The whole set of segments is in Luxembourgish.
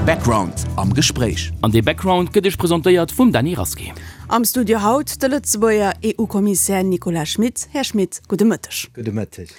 Background am Gespréich. An dee Background gëtt Iech presentéiert vum Dany Rasqué. Am Studio haut de Lëtzebuerger EU-Kommissär Nicolas Schmit. Här Schmit, gudde Mëtteg. Gudde Mëtteg.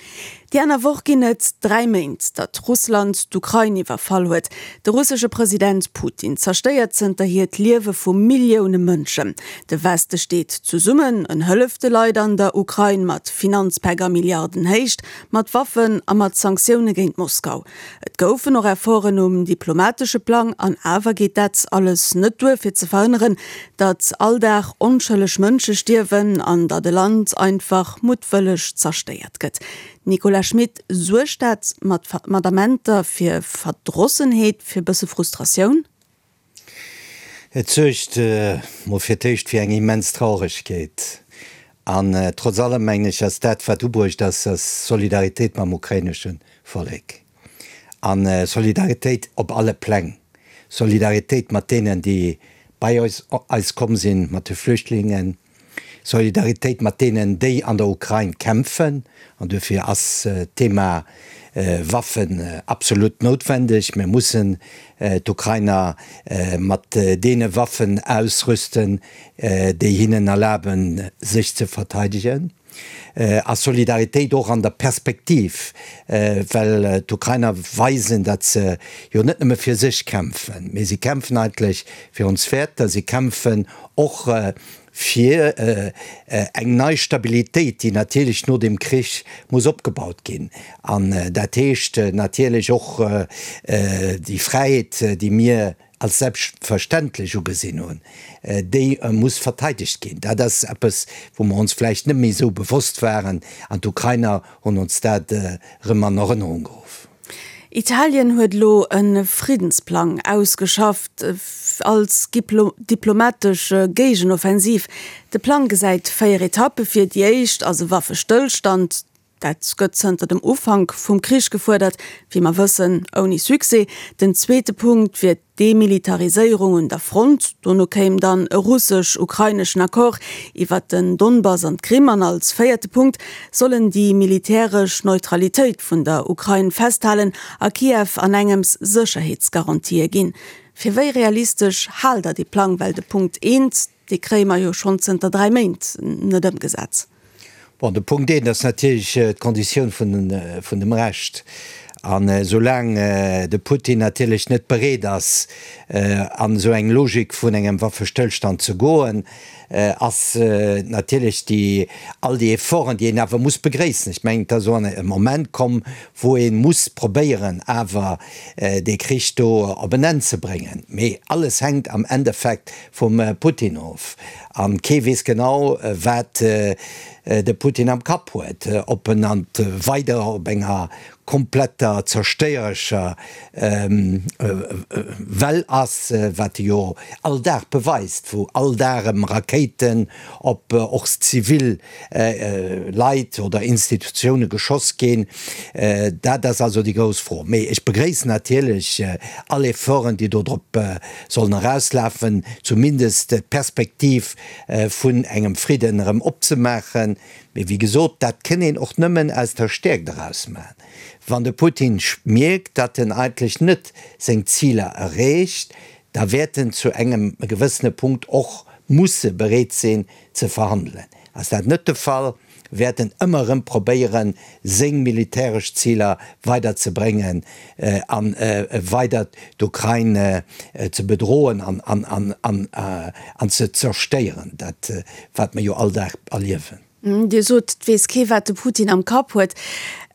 Déi aner Woch ginn et 3 Méint, datt Russland d'Ukrain iwwerfall huet. De russesche President Putin zerstéiert zënterhier d'Liewe vu Millioune Mënschen. De Weste steet zesummen, en hëlleft de Leit an der Ukrain mat Finanzpäck a Milliardenhéicht, mat Waffen a mat Sanktioune géint Moskau. Et goufen och Efforten um diplomatesche Plang, an awer geet dat alles net duer fir ze verhënneren, datt all Dag onschëlleg Mënsche stierwen an datt e Land einfach muttwëlleg zerstéiert gëtt. Nicolas Schmit, Suergt dat mat mat Amenter fir Verdrossenheet, fir e bësse Frustratioun? Et suergt mol fir d'éischt fir eng immens Trauregkeet. An trotz allem mengen ech, ass dat wat ubruecht ass, ass Solidaritéit mam ukrainesche Vollek. A Solidaritéit op alle Pläng. Solidaritéit mat deenen, déi bei eis komm sinn, mat de Flüchtlingen. Solidaritéit mat deenen, déi an der Ukrain kämpfen. An duerfir ass d'Thema Waffen absolut noutwendeg. Mir mussen d'Ukrainer mat deene Waffen ausrüsten, déi hinnen erlaben, sech ze verteidegen. A Solidaritéit och an der Perspektiv, well d'Ukrainer weisen, datt se jo net nëmme fir sech kämpfen, mee si kämpfen eigentlech fir ons Wäerter, si kämpfen och fir eng nei Stabilitéit, déi natierlech no dem Krich muss opgebaut ginn. An dat heescht natierlech och déi Fräiheet, déi mir als selbstverständlech ugesinn hunn, déi muss verteidegt ginn. Dat ass eppes, wou mer ons vläicht net méi esou bewosst waren, an d'Ukrainer hunn ons dat erëm an Erënnerung geruff. Italien huet elo e Friddensplang ausgeschafft als diplomatesch Géigenoffensiv. De Plang gesäit 4 Etappe vir. Déi éischt ass e Waffestëllstand. Dat gëtt zënter dem Ufank vum Krich gefuerdert, wéi mer wëssen, ouni Succès. Den zweete Punkt wier d'Demilitariséierung un der Front. Dono kéim dann e russesch-ukraineschen Accord iwwert den Donbass an d'Krim. An als véierte Punkt sollen déi militäresch Neutralitéit vun der Ukrain festhalen a Kiew an engems Sécherheetsgarantië ginn. Fir wéi realistesch haalt Der dee Plang? Well de Punkt eent, Dee kréie mer jo schonn zënter 3 Méint net ëmgesat. Bon, de Punkt eent ass natierlech d'Konditioun vun dem Recht. An esoulaang de Putin natierlech net bereet ass, an esou eng Logik vun engem Waffestëllstand ze goen, ass natierlech déi, all déi Efforten, déi een awer muss begréissen, ech mengen, et ass elo e Moment komm, wou ee muss probéieren, awer dee Krich do op en Enn ze bréngen. Mee alles hänkt am Endeffekt vum Putin of. An kee weess genau, wat de Putin am Kapp huet, ob en an weider op enger kompletter zerstéierescher Well ass, wat e jo all Dag beweist, wou all Dag erëm Rakéiten op och zivil Leit oder Institutioune geschoss ginn. Dat ass also déi grouss Fro. Mee ech begréissen natierlech all Efforten, déi do drop sollen erauslafen, zumindest d'Perspektiv vun engem Fridden erëm opzemaachen. Mee wéi gesot, dat kënn een och nëmmen aus der Stäerkt eraus maachen. Wann de Putin mierkt, datt en eigentlech net seng Ziler erreecht, da wäert en zu engem gewëssene Punkt och musse bereet sinn ze verhandelen. Ass dat net de Fall, wäert en ëmmer erëm probéieren, seng militäresch Ziler weider ze bréngen a weider d'Ukrain ze bedroen an ze zerstéieren, dat wat mer jo all Dag erliewen. Dir sot, et weess kee wat de Putin am Kapp huet.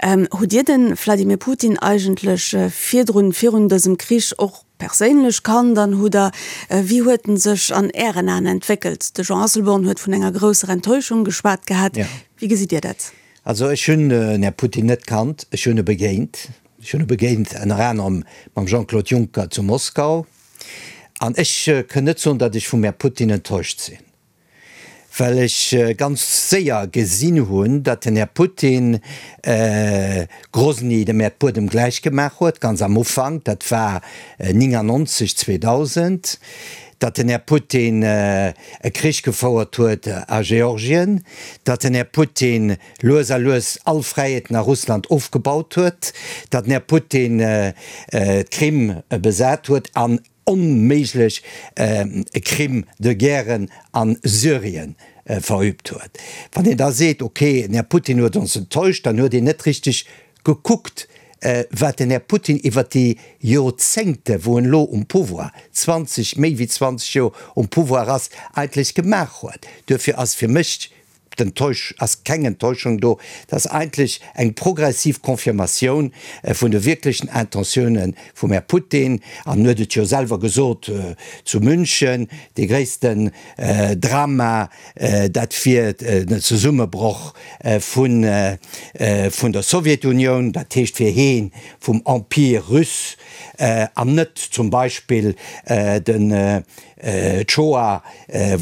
Hutt Dir de Vladimir Putin eigentlech virdrun, virun dësem Krich och perséinlech kannt an hutt Der, wéi huet en sech an Ären Aen entwéckelt? De Jean Asselborn huet vun enger grousser Enttäuschung geschwat gehat. Wéi gesitt Dir dat? Also ech hunn den Här Putin net kannt, ech hunn e begéint. Ech hunn e begéint ënner anerem mam Jean-Claude Juncker zu Moskau. An ech kënn net soen, datt ech vum Här Putin enttäuscht sinn. Well ech ganz séier gesinn hunn, datt den Här Putin Grosny dem Äerdbuedem gläich gemaach huet, ganz am Ufank, dat war 99, 2000, datt den Här Putin e Krich gefouert huet a Georgien, datt den Här Putin lues a lues all Fräiheeten a Russland ofgebaut huet, datt den Här Putin d'Krim besat huet an onméiglech Crime de guerren a Syrien verübt huet. Wann een da seet, ok, den Här Putin huet ons enttäuscht, dann huet een net richteg gekuckt, wat den Här Putin iwwert déi Joerzéngte wou en elo um Pouvoir, 20, méi wéi 20 Joer um Pouvoir ass, eigentlech gemaach huet. Duerfir ass fir mech D'Enttäusch ass keng Enttäuschung do, et ass eigentlech eng progressiv Confirmatioun vun de wierklechen Intentioune vum Här Putin. An en huet et jo selwer gesot zu München, dee gréissten Drama, dat wier den Zesummebroch vun der Sowjetunioun, dat heescht fir heen vum Empire russe an net zum Beispill den D'Shoah,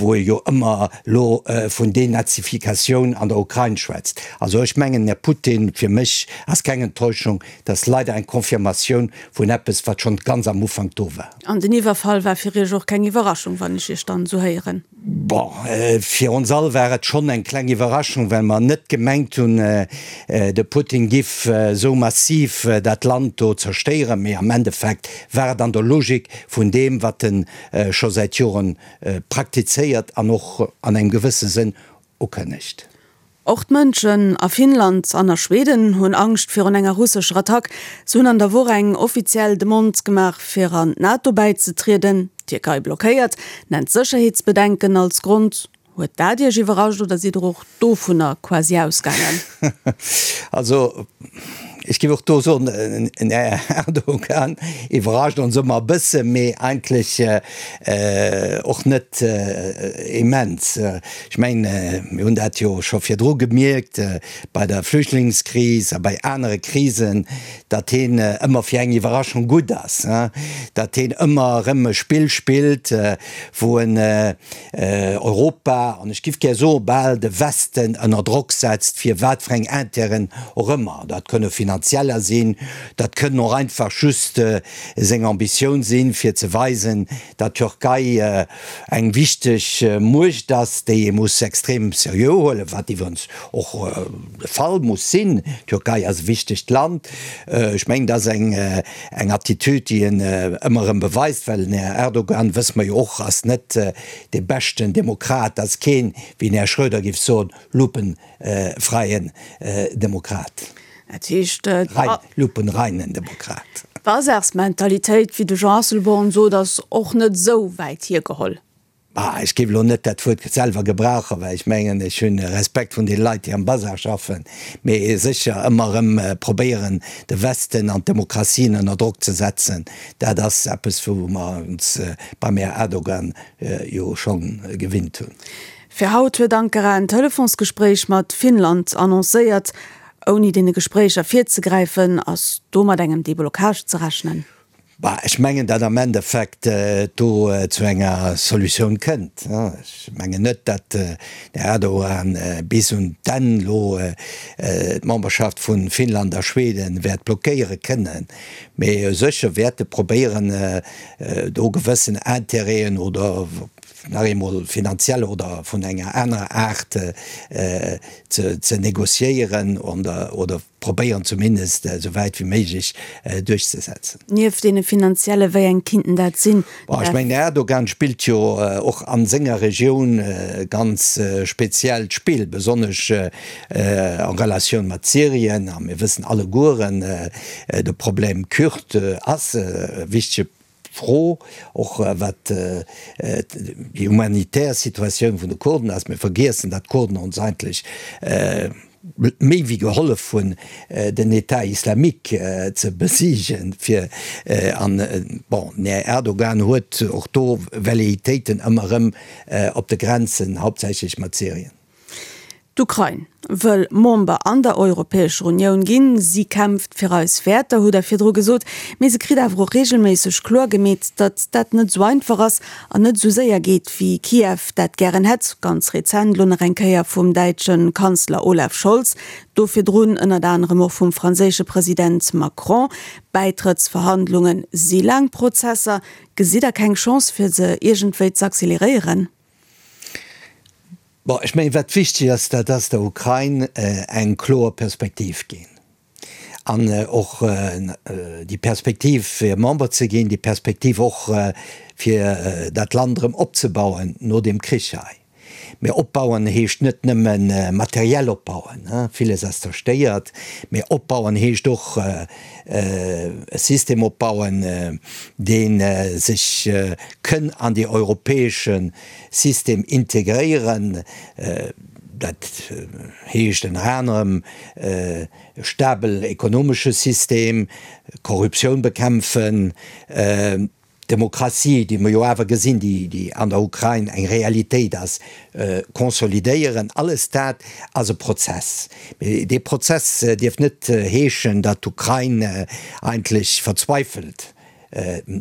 wou e jo ëmmer lo vun Denazifikatioun an der Ukrain schwätzt. Also ech mengen, Här Putin, fir mech ass keng Enttäuschung, dat ass leider eng Confirmatioun vun eppes, wat schonn ganz am Ufank do war. An den Iwwerfall war fir Iech och keng Iwwerraschung, wann ech Iech dann esou héieren? Bon, fir ons all war et schonn eng kleng Iwwerraschung, well mer net gemengt hunn, de Putin giff esou massiv dat Land do zerstéieren. Mee am Endeffekt war et an der Logik vun deem, wat en scho säit Joren praktizéiert an och an engem gewësse Sënn ukënnegt. Och d'Mënschen a Finnland an a Schweden hunn Angscht virun enger russescher Attack. Se hunn an der Woch eng offiziell Demande gemaach, fir an d'NATO bäizetrieden. D'Tierkei blockéiert, nennt Sécherheetsbedenken als Grond. Huet dat Iech iwwerrascht oder sidd Der och dovunner quasi ausgaangen? Also, ech géif och do soen, den Här Erdogan iwwerrascht ons ëmmer e bësse, mee eigentlech och net immens. Ech mengen, mir hunn dat jo scho virdru gemierkt bei der Flüchtlingskris a bei anere Krisen, datt hien ëmmer fir eng Iwwerraschung gutt ass, datt hien ëmmer erëm e Spill spillt, wou en Europa, an ech giff gär soe bal de Westen, ënner Drock setzt, fir wat fir eng Intérêten och ëmmer. Dat kënne finanzieller sinn, dat kënnen och einfach just seng Ambitioun sinn, fir ze weisen, datt d'Türkei eng wichteg Muecht ass, déi ee muss extrem seriö huelen, wat iwwerens och de Fall muss sinn. D'Türkei ass e wichtegt Land. Ech mengen, dat ass eng Eng Attitüd, déi en ëmmer erëm beweist, well den Här Erdogan, wësse mer jo och, ass net dee beschten Demokrat, ass keen, wéi den Här Schröder géif soen, lupenfreien Demokrat. Dat heescht, Rein, lupenreinen Demokrat. D'Bazarsmentalitéit, wéi de Jean Asselborn sot, ass och net esou wäit hiergeholl. Bah, ech géif elo net dat Wuert selwer gebrauchen, well ech mengen, ech hunn Respekt vun deene Leit, déi am Bazar schaffen, mee sécher ëmmer erëm probéieren, de Westen an d'Demokratien ënner Drock ze setzen, dat ass eppes, wou mer ons beim Här Erdogan jo scho gewinnt hunn. Fir haut huet Ankara en Telefonsgespréich mat Finnland annoncéiert. Ouni deene Gespréicher virzegräifen, ass do mat engem Deblocage ze rechnen? Bah, ech mengen, datt am Endeffekt et do zu enger Solutioun kënnt. Ech mengen net, datt den Här Erdogan bis un d'Enn elo d'Memberschaft vu Finnland a Schweden wäert blockéiere kënnen. Mee sécher wäert e probéieren, do gewëssen Intérêten oder nach eemol finanziell oder vun enger anerer Aart ze négociéieren oder probéieren zumindest esou wäit wéi méiglech duerchzesetzen. Nieft deene finanzielle, wéi eng kinnten dat sinn? Bon, ech mengen, den Erdogan spillt jo och a senger Regioun e ganz speziellt Spill, besonnesch en Relatioun mat Syrien. A mir wëssen allegueren, de Problem Kürd ass e wichtege Fro, och wat déi humanitär Situatioun vun de Kurden ass. Mir vergiessen, datt d'Kurden ons eigentlech méi wéi gehollef hunn, den État islamique ze besiegen. Fir, an bon, den Här Erdogan huet och do Velléitéiten ëmmer erëm op de Grenzen, hauptsächlech mat Syrien. D'Ukrain wëll Member an der Europäescher Unioun ginn. Si kämpft fir eis Wäerter, hutt Der virdru gesot. Mee se kritt awer och reegelméisseg kloer gemeet, datt dat net esou einfach ass an net esou séier geet, wéi Kiew dat gären hätt. Ganz rezent elo nach eng Kéier vum däitsche Kanzler Olaf Scholz, do virdrun ënnert anerem och vum franséische President Macron. Bäitrëttsverhandlunge si laang Prozesser. Gesitt Der keng Chance, fir se iergendwéi z'acceleréieren? Bon, ech mengen, wat wichteg ass, dat ass der Ukrain eng kloer Perspektiv ginn an och déi Perspektiv fir Member ze ginn, déi Perspektiv och fir dat Land erëm opzebauen no deem Krich hei. Mä opbauen heescht net nëmme materiell opbauen, villes ass zerstéiert, mä opbauen heescht och e System opbauen, dee sech kënn an déi europäesche System integréieren, dat heescht ënner anerem e stabel ekonomesche System, Korruptioun bekämpfen, d'Demokratie, déi mer jo awer gesinn, déi an der Ukrain eng Realitéit ass, consolidéieren. Alles dat ass e Prozess. Mee dee Prozess dierf net heeschen, datt d'Ukrain eigentlech verzweifelt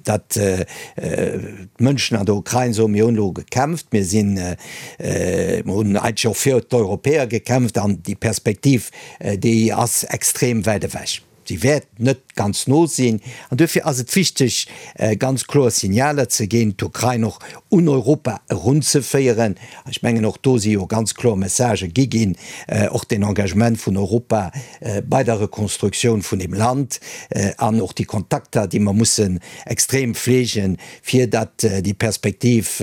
datt d'Mënschen an der Ukrain soen, mir hunn elo gekämpft, mir sinn, mir hunn eigentlech och fir d'Europäer gekämpft an déi Perspektiv, déi ass extrem wäit ewech. Si wäert net ganz no sinn. An duerfir ass et wichteg, ganz kloer Signaler ze ginn, d'Ukrain och un Europa erunzeféieren. Ech mengen, och do si jo ganz kloer Messagë gi ginn, och den Engagement vun Europa bei der Rekonstruktioun vun deem Land an och déi Kontakter, déi mer mussen extrem fleegen, fir datt déi Perspektiv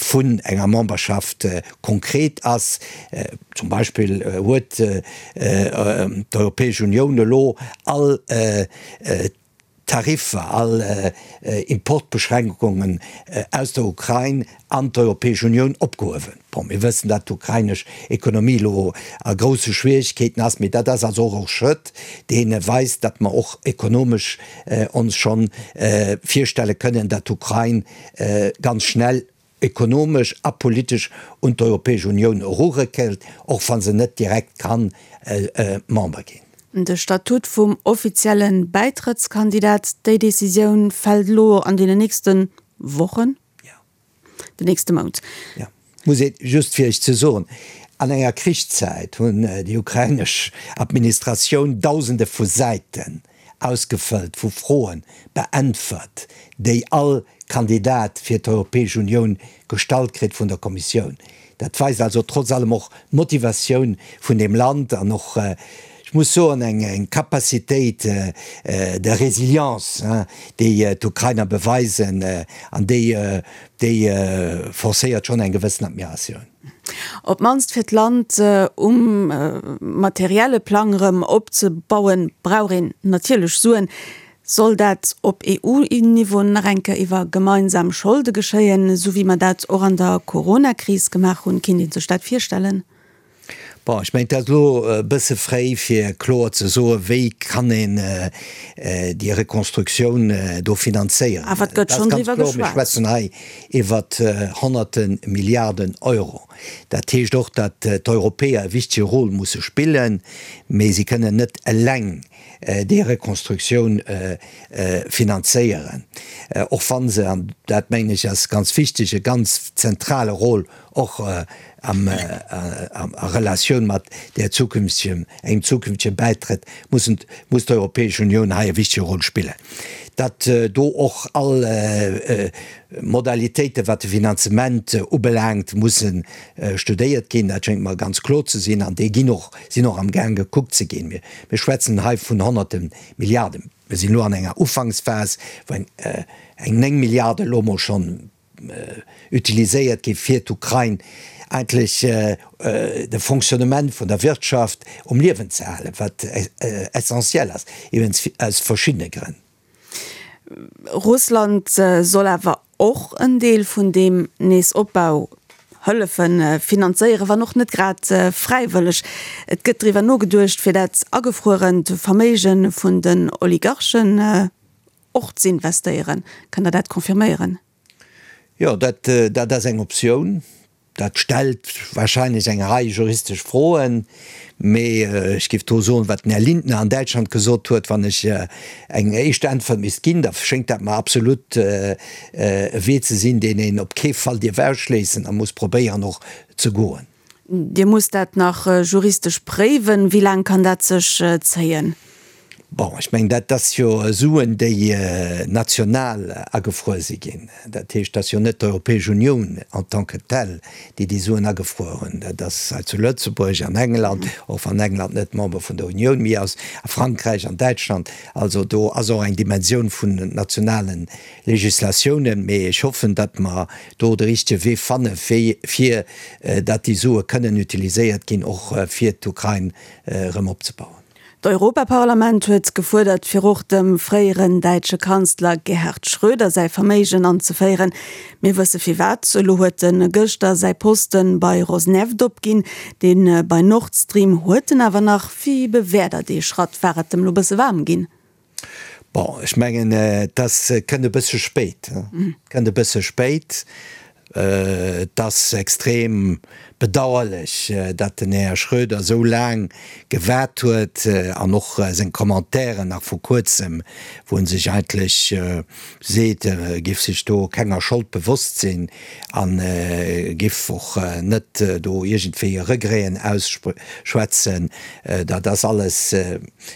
vun enger Memberschaft konkret ass. Zum Beispill huet d'Europäesch Unioun elo all Tariffer, all Importbeschränkungen aus der Ukrain an d'Europäesch Unioun opgehuewen. Bon, mir wëssen, datt d'ukrainesch Ekonomie elo a grousse Schwierigkeeten ass, mee dat ass also och e Schrëtt, dee weist, datt mer och ekonomesch ons schonn virstelle kënnen, datt d'Ukrain ganz schnell ekonomesch a politesch un d'Europäesch Unioun eruréckelt, och wa se net direkt kann Member ginn. De Statut vum offizielle Bäitrëttskandidat, déi Decisioun fält elo an deenen nächste Wochen, den nächste Mount. Jo, muss ee just fir Iech ze soen, an enger Krichszäit hunn déi ukrainesch Administratioun Dausende vu Säiten ausgefëllt, vu Froen beäntwert, déi all Kandidat fir d'Europäesch Unioun gestallt kritt vun der Kommissioun. Dat weist also trotz allem och d'Motivatioun vun deem Land an och, ech muss soen, eng Capacitéit de résilience, déi d'Ukrainer beweisen an déi, déi forcéiert schonn eng gewëssen Admiratioun. Op d'mannst fir d'Land um materielle Plang erëm opzebauen, brauch een natierlech Suen. Soll dat op EU-Niveau nach eng Kéier iwwer gemeinsam Scholde geschéien, esou wéi mer dat och an der Coronakris gemaach hunn? Kinnt ee sech dat virstellen? Bon, ech mengen, et ass elo e bësse fréi, fir kloer ze soen, wéi kann een déi Rekonstruktioun do finanzéieren. Awer et gëtt schonn driwwer geschwat. Mir schwätzen hei iwwer Honnerte Milliarden Euro. Dat heescht och, datt d'Europäer e wichtege Rôle musse spillen, mee si kënnen net eleng déi Rekonstruktioun finanzéieren, och wa se, an dat mengen ech ass ganz wichteg, e ganz zentrale Rôle och a Relatioun mat där zukünftigen, engem zukünftege Bäitrëtt mussen, muss d'Europäesch Unioun hei e wichtege Rôle spillen, datt do och all Modalitéiten, wat de Finanzement ubelaangt, musse studéiert ginn. Dat schéngt mer ganz kloer ze sinn an déi ginn och, sinn och amgaang gekuckt ze ginn. Mir schwätzen hei vun Honnerte Milliarden. Mir sinn elo an enger Ufanksphas, wou eng 9 Milliarden elo emol schonn utiliséiert gi fir d'Ukrain eigentlech de Fonctionnement vun der Wirtschaft um Liewen ze halen, wat essentiell ass, iwwregens aus verschiddene Grënn. Russland soll awer och en Deel vun deem Neesopbau hëllefe finanzéieren, wann och net grad fräiwëlleg. Et gëtt driwwer nogeduecht, fir dat agefruerent Verméige vun den Oligarchen och z'investéieren. Kënnt Der dat confirméieren? Jo, dat ass eng Optioun. Dat stellt wahrscheinlech eng Rei juristesch Froen, mee ech géif do soen, wat den Här Lindner an Däitschland gesot huet, wann ech eng éischt Äntwert misst ginn, da schéngt dat mer absolut e Wee ze sinn, deen een op kee Fall dierf ausschléissen a muss probéieren och ze goen. Dir musst dat nach juristesch préiwen. Wéi laang kann dat sech zéien? Bon, ech mengen, dat ass jo Suen, déi national agefruer si ginn. Dat heescht, et ass jo net d'Europäesch Unioun en tant que telle, déi déi Suen agefruer hunn. Dat ass hei zu Lëtzebuerg, an England, och wann England net Member vun der Unioun méi ass, a Frankräich, an Däitschland. Also do ass och eng Dimensioun vun nationale Legislatiounen. Mee ech hoffen, datt mer do de richtege Wee fanne fir datt déi Sue kënnen utiliséiert ginn, och fir d'Ukrain erëm opzebauen. D'Europaparlament huet gefuerdert, fir och dem fréieren däitsche Kanzler Gerhard Schröder säi Verméigen anzeféieren. Mir wësse firwat. Elo huet en gëschter säi Poste bei Rosneft opginn. Dee bei Nord Stream huet en awer nach. Wéi bewäert Der dee Schratt? War et em lo bësse waarm ginn? Bon, ech mengen, et ass, kënnt e bësse spéit, kënnt e bësse spéit. Et ass extrem bedauerlech, datt den Här Schröder esou laang gewaart huet an och seng Commentairen nach vu kuerzem, wou en sech eigentlech seet, e géif sech do kenger Schold bewosst sinn a géif och net do iergendwéi Regreten ausschwätzen, dat ass alles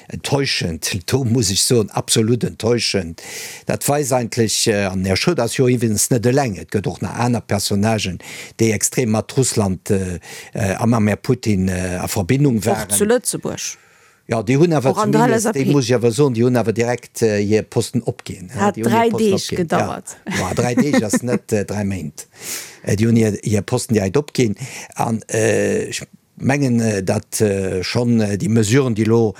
Enttäuschend, do muss ech soen, absolut enttäuschend. Dat weist eigentlech, an den Här Schröder ass jo iwwregens net eleng, et gëtt och nach aner Personnagen, déi extrem mat Russland a mam Här Putin a Verbindung waren. Och zu Lëtzebuerg. Jo, déi hunn awer zumindest, déi muss ech awer soen, déi hunn awer direkt hir Posten opginn. Hat 3 Deeg gedauert. Jo, 3 Deeg ass net 3 Méint. Déi hunn hir Posten direkt opginn an ech mengen, datt schonn déi Mesuren, déi elo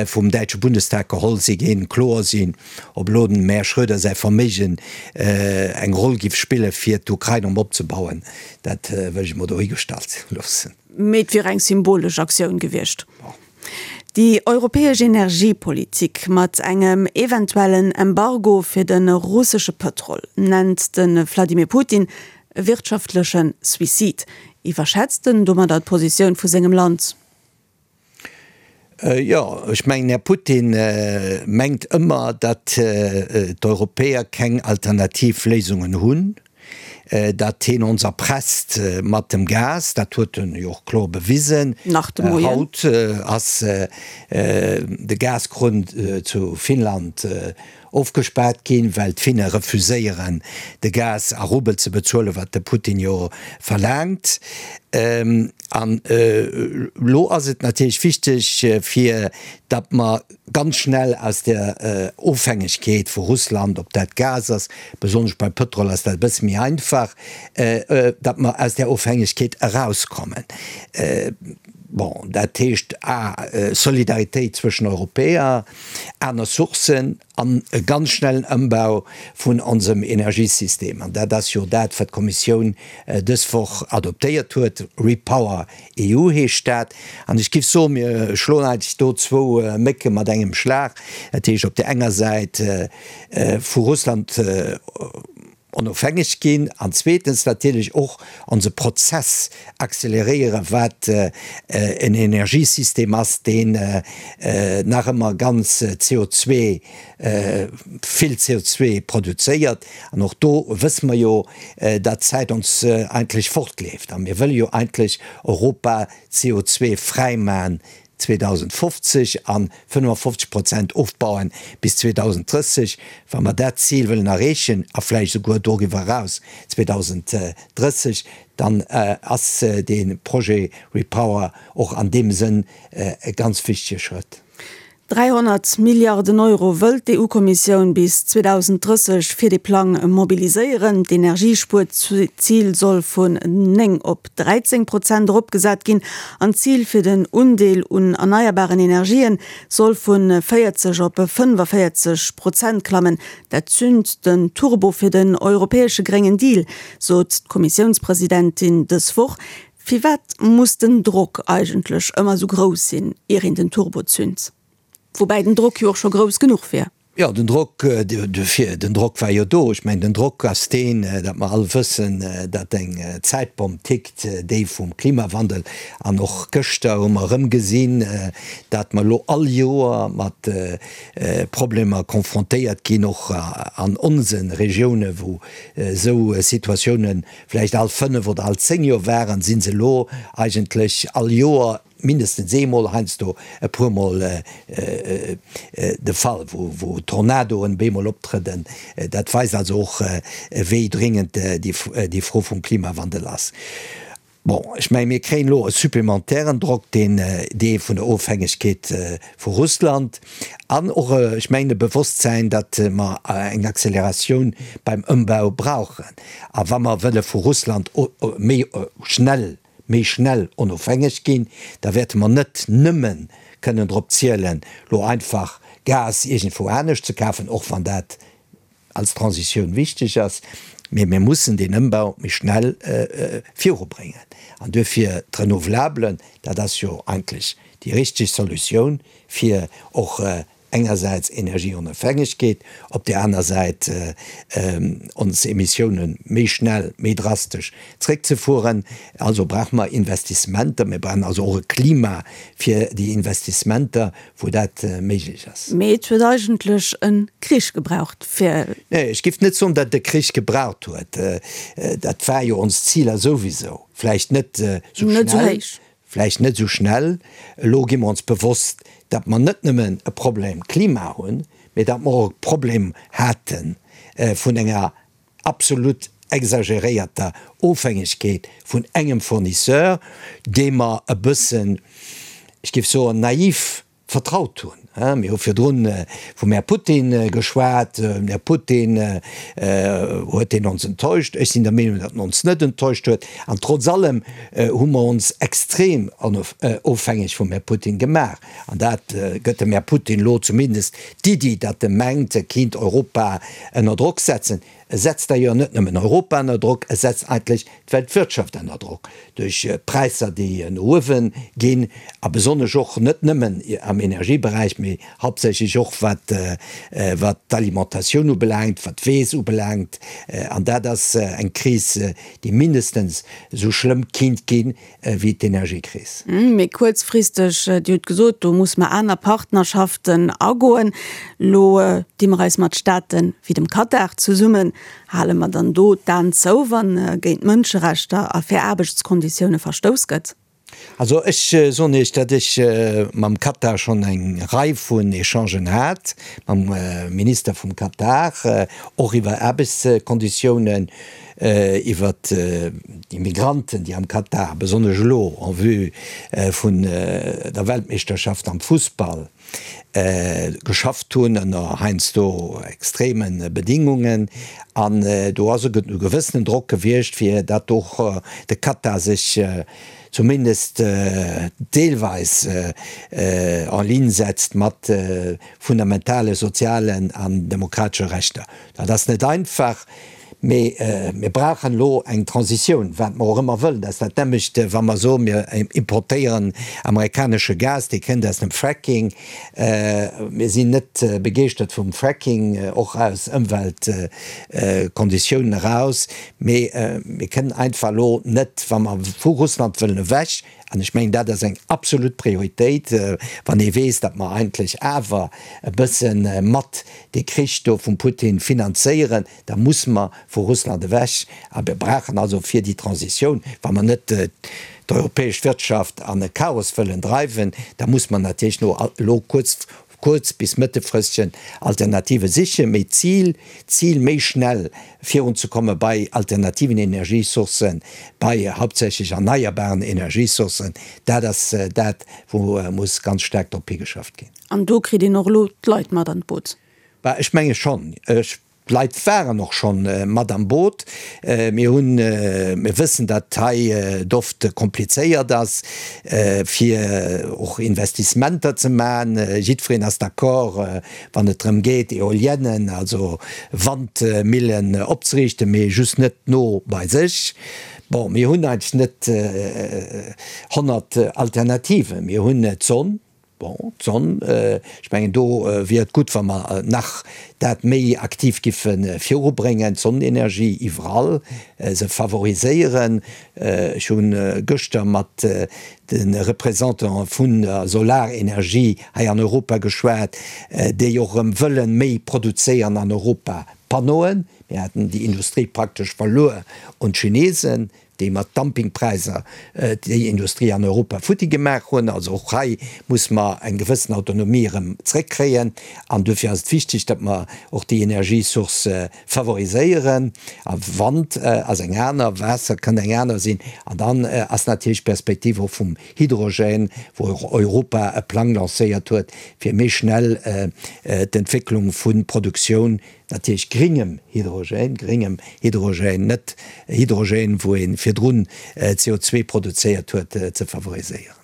vum däitsche Bundestag geholl si ginn, kloer sinn. Ob elo dem Här Schröder säi Verméigen eng Roll giff spille fir d'Ukrain erëm opzebauen, dat wëll ech emol dohigestallt loossen. Mee et wier eng symbolesch Aktioun gewiescht. Déi europäesch Energiepolitik mat engem eventuellen Embargo fir de russesche Pëtrol nennt de Vladimir Putin e wirtschaftleche Suicide. Iwwerschätzt en domadder d'Positioun vu sengem Land? Jo, ech mengen, Här Putin mengt ëmmer, datt d'Europäer keng alternativ Léisungen hunn, datt hien ons erpresst mat dem Gas. Dat huet en jo och kloer bewisen. Nach de Moien. Haut ass de Gaskrunn zu Finnland ofgespaart ginn, well d'Finne refuséieren de Gas a Rubel ze bezuelen, wat de Putin jo verlaangt. An elo ass et natierlech wichteg, fir datt mer ganz schnell aus der Ofhängegkeet vu Russland, ob dat Gas ass, besonnesch beim Pëtrol ass dat e bësse méi einfach, datt mer aus där Ofhängegkeet erauskommen. Bon, dat heescht a Solidaritéit zwëschen Europäer, aner Sourcen an e ganz schnellen Ëmbau vun onsem Energiesystem. An dat ass jo dat, wat d'Kommissioun dës Woch adoptéiert huet, Repower EU heescht dat. An ech géif soen, mir schloen eigentlech do zwou Mécke mat engem Schlag. Dat heescht op där enger Säit vu Russland onofhängeg ginn an zweetens natierlech och onse Prozess acceleréieren, wat en Energiesystem ass, deen nach ëmmer ganz CO2, vill CO2 produzéiert. An och do wësse mer jo, datt d'Zäit ons eigentlech fortleeft a mir wëlle jo eigentlech Europa CO2-fräi maachen 2050 an 55 Prozent ofbauen bis 2030. Wa mer dat Zil wëllen erreechen, a vläicht esouguer doriwwer eraus 2030, dann ass dee Projet REPower och an deem Sënn e ganz wichtege Schrëtt. 300 Milliarden Euro wëllt d'EU-Kommissioun bis 2030 fir dee Plang mobiliséieren. D'Energiespuerzil soll vun 9 op 13 Prozent eropgesat ginn an d'Zil fir den Undeel un erneierbaren Energien soll vu 40 op 45 Prozent klammen. Dat zünt den Turbo fir den europäesche gréngen Deal, sot d'Kommissiounspresidentin dës Woch. Firwat muss den Drock eigentlech ëmmer esou grouss sinn, ier een den Turbo zünt? Woubäi den Drock jo och scho grouss genuch wier. Jo, den Drock, den Drock war jo do. Ech mengen, den Drock ass deen, datt mer all wëssen, datt eng Zäitbomm tickt, déi vum Klimawandel. An och gëschter hu mer erëm gesinn, datt mer elo all Joer mat Problemer confrontéiert ginn, och an onse Regiounen, wou esou Situatiounen vläicht all fënnef oder all zéng Joer waren, si se elo eigentlech all Joer mindestens eemol, heiansdo e puermol de Fall, wou Tornadoen bemol optrëden. Dat weist also och, wéi dringend déi Fro vum Klimawandel ass. Bon, ech mengen, mir kréien elo e supplementären Drock, deen dee vun der Ofhängegkeet vu Russland an och, ech mengen, e Bewosstsäin, datt mer eng Acceleratioun beim Ëmbau brauchen. A wa mer wëlle vu Russland méi schnell méi schnell onofhängeg ginn, da wäerte mer net nëmme kënnen drop zielen, lo einfach Gas iergendwou anescht ze kafen, och wann dat als Transitioun wichteg ass, mee mir mussen deen Ëmbau méi schnell virubréngen. An duerfir d'Renouvelables, dat ass jo eigentlech déi richteg Solutioun, fir och engersäits Energieonofhängegkeet, op där aner Säit ons Emissiounen méi schnell, méi drastesch zréckzefueren. Also brauche mer Investissementer. Mir brauchen also och e Klima fir déi Investissementer, wou dat méiglech ass. Mee et huet eigentlech e Krich gebraucht, fir. Nee, ech géif net soen, datt et e Krich gebraucht huet. Dat war jo ons Ziler souwisou. Vläicht net esou schnell. Vläicht net esou schnell. Elo gi mer ons bewosst, datt mer net nëmmen e Problem Klima hunn, mee datt mer och e Problem hate vun enger absolut exageréierter Ofhängegkeet vun engem Fournisseur, dee mer e bëssen, ech géif soen, naiv vertraut hunn. Mir hu virdrun vum Här Putin geschwat. Den Här Putin, huet deen ons enttäuscht? Ech sinn der Meenung, datt en ons net enttäuscht huet. An trotz allem hu mer ons extrem ofhängeg vum Här Putin gemaach. An dat gëtt dem Här Putin elo zumindest d'Iddi, datt e mengt, e kinnt Europa ënner Drock setzen. E setzt d'ailleurs net nëmmen Europa ënner Drock, e setzt eigentlech d'Weltwirtschaft ënner Drock duerch Präisser, déi no uewe ginn, a besonnesch och net nëmmen am Energieberäich, mee hauptsächlech och wat wat d'Alimentatioun ubelaangt, wat d'Weess ubelaangt. An dat ass eng Kris, déi mindestens esou schlëmm kinnt ginn wéi d'Energiekris. Méi kuerzfristeg, Dir hutt gesot, do muss mer aner Partnerschaften agoen. Elo di mer eis mat Staate wéi dem Katar zesummen. Hale mer dann do d'Aen zou, wa géint Mënscherechter a fair Aarbechtskonditioune verstouss gëtt? Also ech soen Iech, datt ech mam Katar schonn eng Rei vun Echangen hat, mam Minister vum Katar, och iwwer Aarbechtskonditiounen. Iwwer déi Migranten, déi am Katar, besonnesch elo en vue vun der Weltmeeschterschaft am Fussball, geschafft hunn, ënner heiansdo extreme Bedingungen. An do ass e gewëssenen Drock gewiescht, fir datt och de Katar sech zumindest deelweis en ligne setzt mat fundamentale sozialen an demokratesche Rechter. Dat ass net einfach. Mee mir brauchen elo eng Transitioun, wat mer och ëmmer wëllen. Dat ass dat nämmlecht, wa mer soen, mir importéieren amerikanesche Gas, dee kënnt aus dem Fracking. Mir sinn net begeeschtert vum Fracking, och aus Ëmweltkonditiounen eraus. Mee mir kënnen einfach elo net, wa mer vu Russland wëllen ewech, an ech mengen, dat ass eng absolut Prioritéit, wann ee weess, datt mer eigentlech awer e bësse mat dee Krich do vum Putin finanzéieren, Da musse mer vu Russland ewech. A mir brauchen also fir déi Transitioun, wa mer net d'europäesch Wirtschaft an e Chaos wëllen dreiwen, da musse mer natierlech no elo kuerz, kuerz bis mëttelfristegen Alternative sichen. Mee d'Zil, d'Zil méi schnell virunzekomme bei alternativen Energiesourcen, bei hauptsächlech erneierbaren Energiesourcen, dat ass dat, wou muss ganz staark drop higeschafft ginn. An do kritt een och elo d'Leit mat an d'Boot. Bah, ech menge schonn. Ech D'Leit waren och schonn mat am Boot. Mir hunn, mir wëssen, datt hei et oft komplizéiert ass, fir och Investissementer ze maachen. Jiddwereen ass d'accord, wann et drëm geet, Eoliennen, also Wandmillen opzeriichten, mee just net no bei sech. Bon, mir hunn eigentlech net 100 Alternativen. Mir hunn d'Sonn. Bon, d'Sonn, ech mengen do wier et gutt, wa mer nach dat méi aktiv giffe virubréngen, d'Sonnenenergie iwwerall se favoriséieren. Ech hu gëschter mat de Représentante vun der Solarenergie hei an Europa geschwat, déi och erëm wëlle méi produzéieren an Europa, Panneauen. Mir haten déi Industrie praktesch verluer un d'Chinesen. déi mat Dumpingpräisser déi Industrie an Europa futti gemaach hunn. Also och hei muss mer eng gewëssen Autonomie erëm zréckkréien an duerfir ass et wichteg, datt mer och déi Energiesourcë favoriséieren. A Wand ass eng aner, Waasser kënnt eng aner sinn. An dann ass natierlech d'Perspektiv och vum Hydrogène, wou och Europa e Plang lancéiert huet, fir méi schnell d'Entwécklung vu Produktioun Natierlech gringem Hydrogène, gringem Hydrogène, net Hydrogène, wou ee virdrun CO2 produzéiert huet, ze favoriséieren.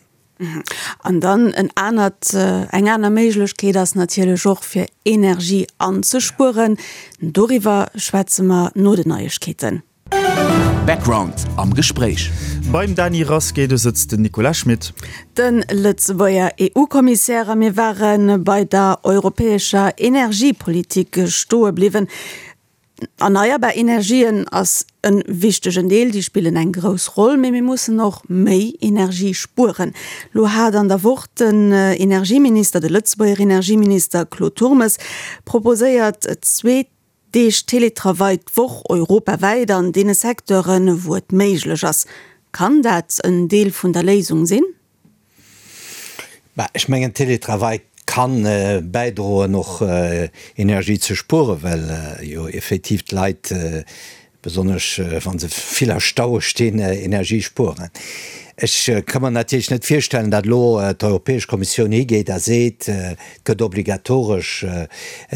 An dann en anert, eng aner Méiglechkeet ass natierlech och, fir Energie anzespueren. Doriwwer schwätze mer no den Neiegkeeten. Background am Gespréich. Beim Dany Rasqué, do sëtzt den Nicolas Schmit. De Lëtzebuerger EU-Kommissär a mir ware bei der europäescher Energiepolitik stoe bliwwen. Erneierbar Energien ass e wichtegen Deel, déi spillen eng grouss Roll, mee mir mussen och méi Energie spueren. Lo hat an der Woch den Energieminister, de Lëtzebuerger Energieminister Claude Turmes proposéiert, zwee Deeg Teletravail d'Woch europawäit an deene Secteuren, wou et méiglech ass. Kann dat en Deel vun der Léisung sinn? Bah, ech mengen, Teletravail kann bäidroen, och Energie ze spueren, well jo effektiv d'Leit besonnesch wa se vill a Staue stinn, Energie spueren. Ech ka mer natierlech net virstellen, datt elo d'Europäesch Kommissioun higeet a seet, et gëtt obligatoresch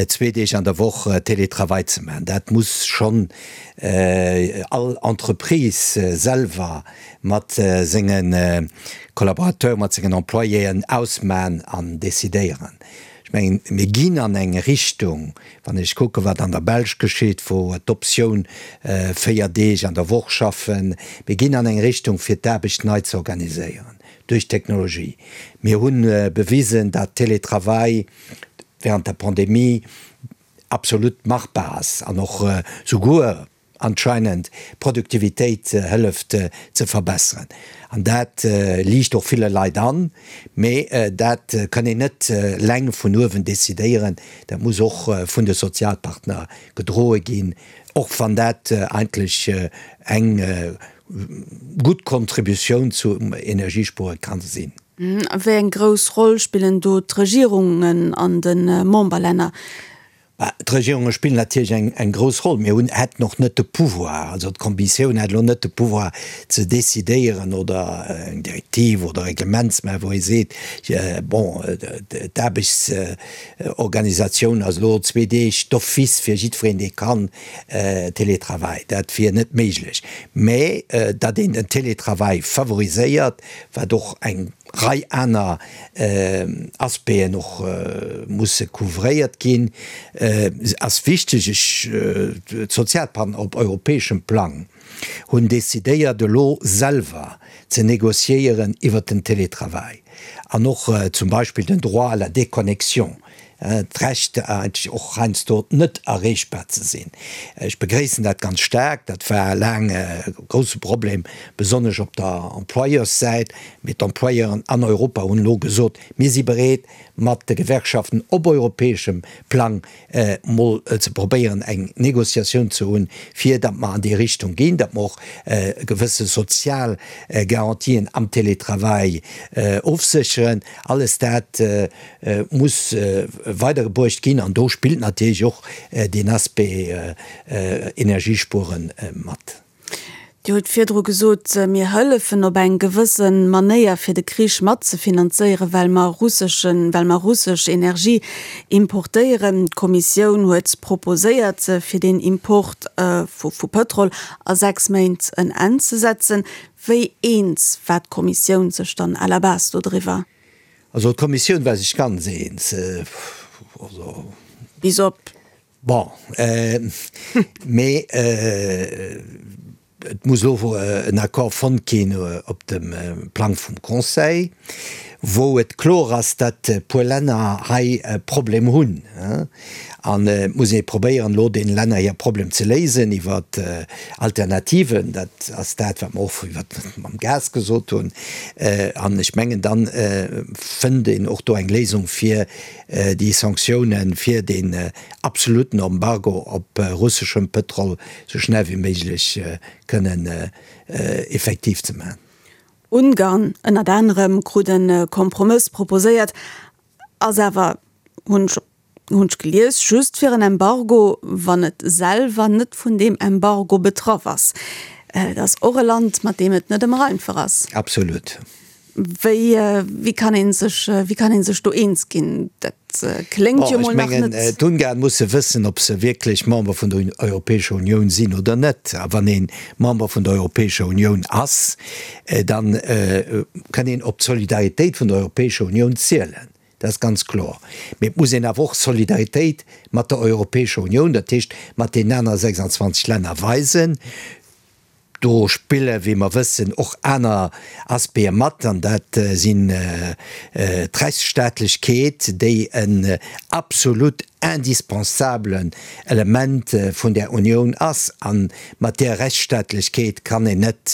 zwee Deeg an der Woch Télétravail ze maachen. Dat muss schonn all Entreprise selwer mat senge Collaborateuren, mat sengen Employéen ausmachen an decidéieren. Ech mengen, mir ginn an eng Richtung, wann ech kucken, wat an der Belsch geschitt, wou d'Optioun 4 Deeg an der Woch schaffen, mir ginn an eng Richtung, fir d'Aarbecht nei ze organiséieren duerch d'Technologie. Mir hu bewisen, datt Télétravail während der Pandemie absolut machbar ass an och souguer, anscheinend d'Produktivitéit hëlleft ze verbesseren. An dat liicht och ville Leit an, mee dat kann een net eleng vun uewen decidéieren, dat muss och vun de Sozialpartner gedroe ginn, och wann dat eigentlech eng gutt Kontributioun zum Energiespuere ka sinn. Wéi eng grouss Roll spillen do d'Regierungen an de Memberlänner? D'Regierunge spillen natierlech eng grouss Roll. Mir hunn, hätten och net de Pouvoir, also d'Kommissioun hätt elo net de Pouvoir ze decidéieren oder eng Direktiv oder e Reglement ze maachen, wou ee seet, bon, d'Aarbechtsorganisatioun ass elo zwee Deeg d'office fir jiddwereen, dee kann, Télétravail. Dat wier net méiglech. Mä datt een den Télétravail favoriséiert, wat och eng Rei aner Aspecten och musse couvréiert ginn, ass wichteg. Ech, d'Sozialpartner op europäeschem Plang hunn decidéiert elo selwer ze négociéieren iwwert den Télétravail an och zum Beispill den Droit à la déconnexion, d'Recht eigentlech och heiansdo net erreechbar ze sinn. Ech begréissen dat ganz staark. Dat war laang e grousse Problem, besonnesch op der Employeurssäit. Mee d'Employeuren an Europa hunn elo gesot, Mir si bereet, mat de Gewerkschaften op europäeschem Plang mol ze probéieren, eng Négociatioun ze hunn, fir datt mer an déi Richtung ginn, datt mer och gewësse sozial Garantien am Télétravail ofsécheren. Alles dat muss weidergebruecht ginn an do spillt natierlech och deen Aspect Energiespueren mat. Dir hutt virdru gesot, mir hëllefen op eng gewësse Manéier fir de Krich matzefinanzéieren, well mer russeschen, well mer russesch Energie importéieren. D'Kommissioun huet proposéiert, fir deen Import vu vu Pëtrol a 6 Méint en Enn ze setzen. Wéi eens war d'Kommissioun sech dann à la base dodriwwer? Also d'Kommissioun war sech ganz eens. Also. Bis op. Bon, mee et muss elo en Accord fonnt ginn op dem Plang vum Conseil. wou et kloer ass, datt e puer Länner hei e Problem hunn. An et muss ee probéieren, elo deene Länner hir Problem ze léisen iwwer Alternativen. Dat ass dat, wat mer och iwwer mam Gas gesot hunn. An ech mengen, da fënnt een och do eng Léisung fir déi Sanktiounen, fir deen absoluten Embargo op russeschem Pëtrol esou schnell wéi méiglech kënnen effektiv ze maachen. Ungarn ënnert anerem krut e Kompromëss proposéiert, ass awer, hunn ech hunn ech gelies, just fir en Embargo, wann et selwer net vun deem Embargo betraff ass. Et ass och e Land, mat deem et net ëmmer einfach ass. Absolut. Wéi, wéi kann ee sech, wéi kann ee sech do eens ginn? Dat kléngt jo mol nach net. Ech mengen, d'Ungarn musse wëssen, ob se wierklech Member vun der Europäescher Unioun sinn oder net. A wann ee Member vun der Europäescher Unioun ass, da kann een op d'Solidaritéit vun der Europäescher Unioun zielen. Dat ass ganz kloer. Mee et muss een awer och Solidaritéit mat der Europäescher Unioun, dat heescht mat deenen anere 26 Länner weisen. Do spille, wéi mer wëssen, och aner Aspecte mat, an dat sinn d'Rechtsstaatlechkeet, déi en absolut indispensablen Element vun där Unioun ass. A mat där Rechtsstaatlechkeet kann een net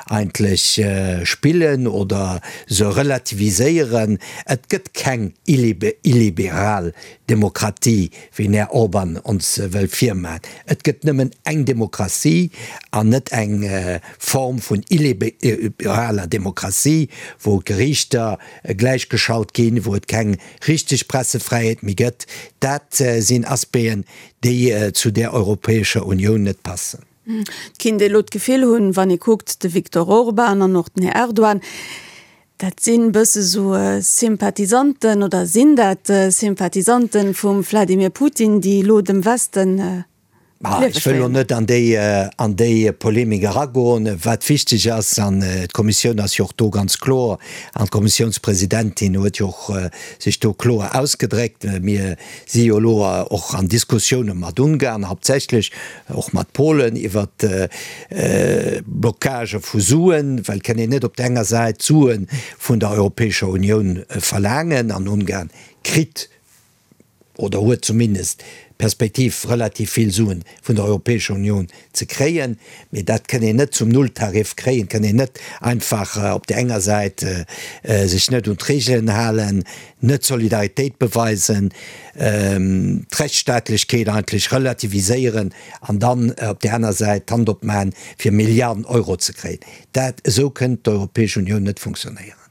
eigentlech spillen oder se relativiséieren. Et gëtt keng illiberal Demokratie, wéi den Här Orban ons wëll virmaen. Et gëtt nëmmen eng Demokratie an net eng Form vun illiberaler Demokratie, wou d'Geriichter gläichgeschalt ginn, wou et keng richteg Pressefräiheet méi gëtt. Dat sinn Aspecten, déi zu där Europäescher Unioun net passen. Et kinnt ee lo d'Gefill hunn, wann ee kuckt, de Viktor Orban an och den Här Erdogan, dat sinn bësse sou Sympathisanten oder sinn dat Sympathisanten vum Vladimir Putin, déi elo dem Westen d'Liewe Ech wëll lo net an déi an déi Polemik eragoen. Wat wichteg ass, an d'Kommissioun ass jo och do ganz kloer, an d'Kommissiounspresidentin huet jo och sech do kloer ausgedréckt, mir si jo elo och an Diskussioune mat Ungarn, hauptsächlech och mat Polen, iwwer Blocagë vu Suen, well et kann een net op der enger Säit Sue vun der Europäescher Unioun verlaangen an Ungarn kritt oder huet zumindest d'Perspektiv relativ vill Suen vun der Europäescher Unioun ze kréien, mee dat kënn een net zum Nulltarif kréien, et kënn een net einfach op där enger Säit sech net un d'Regelen halen, net Solidaritéit beweisen, d'Rechtsstaatlechkeet eigentlech relativiséieren an dann op där aner Säit d'Hand opmachen, fir Milliarden Euro ze kréien. Dat, esou kënnt d'Europäesch Unioun net funktionéieren.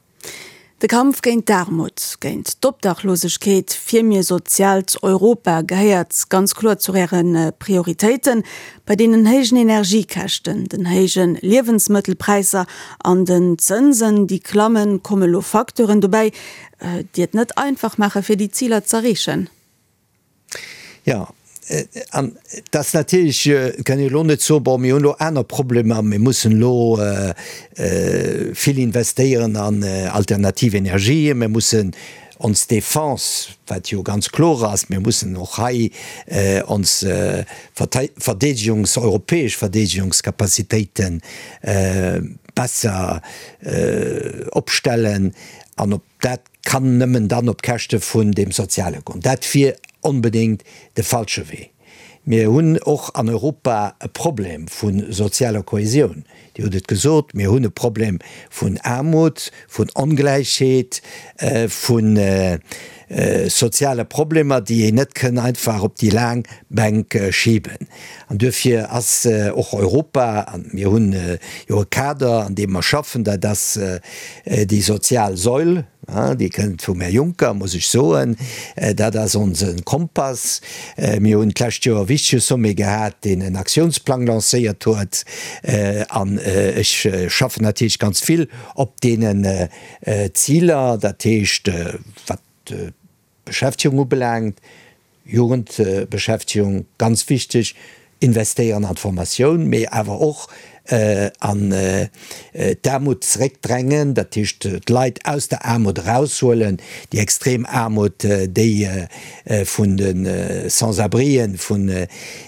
De Kampf géint d'Aarmut, géint d'Obdachlosegkeet, fir mir soziaalt Europa gehéiert ganz kloer zu Äre Prioritéiten. Bei deenen héijen Energiekäschten, den héije Liewensmëttelpräisser an den Zënsen, déi klammen, komme lo Facteuren dobäi, déi et net einfach maache fir déi Ziler z'erreechen. Jo, an et ass natierlech, et kann een elo net soen, bon, mir hunn elo aner Problemer, mir mussen elo vill investéieren an alternativ Energien, mir mussen ons Defense, wat jo ganz kloer ass, mir mussen och hei ons Verdeedegungs-, europäesch Verdeedegungscapacitéite besser opstellen an op dat kann nëmmen dann op Käschte vun deem Soziale goen. Dat wier onbedéngt de falsche Wee. Mir hunn och an Europa e Problem vu sozialer Kohäsioun. Dir hutt et gesot, mir hunn e Problem vun Aarmut, vun Ongläichheet, vu soziale Problemer, déi een net kënn einfach op déi laang Bänk schiben. An duerfir ass och Europa, a mir hunn jo e Kader, an deem mer schaffen, dat ass déi sozial Säul, déi kënnt vum Här Juncker, muss ech soen, dat ass onse Kompass. Mir hunn d'lescht Joer e wichtege Sommet gehat, deen en Aktiounsplang lancéiert huet. An ech schaffen natierlech ganz vill op deenen Ziler, dat heescht, wat d'Beschäftegung ubelaangt, Jugendbeschäftegung, ganz wichteg, investéieren an d'Formatioun, mee awer och. An d'Aarmut zeréckdrängen, dat heescht d'Leit aus der Aarmut eraushuelen, déi extrem Aarmut, déi vun de Sans-abrien, vun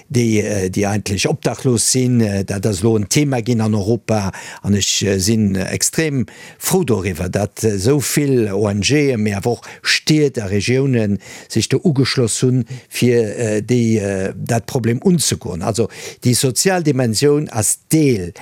déi, déi eigentlech obdachlos sinn. Dat ass elo en Thema ginn an Europa an ech sinn extrem frou doriwwer, datt esou vill ONGen, mee awer och Stied a Regiounen sech do ugeschloss hunn, fir déi, dat Problem unzegoen. Also déi sozial Dimensioun ass Deel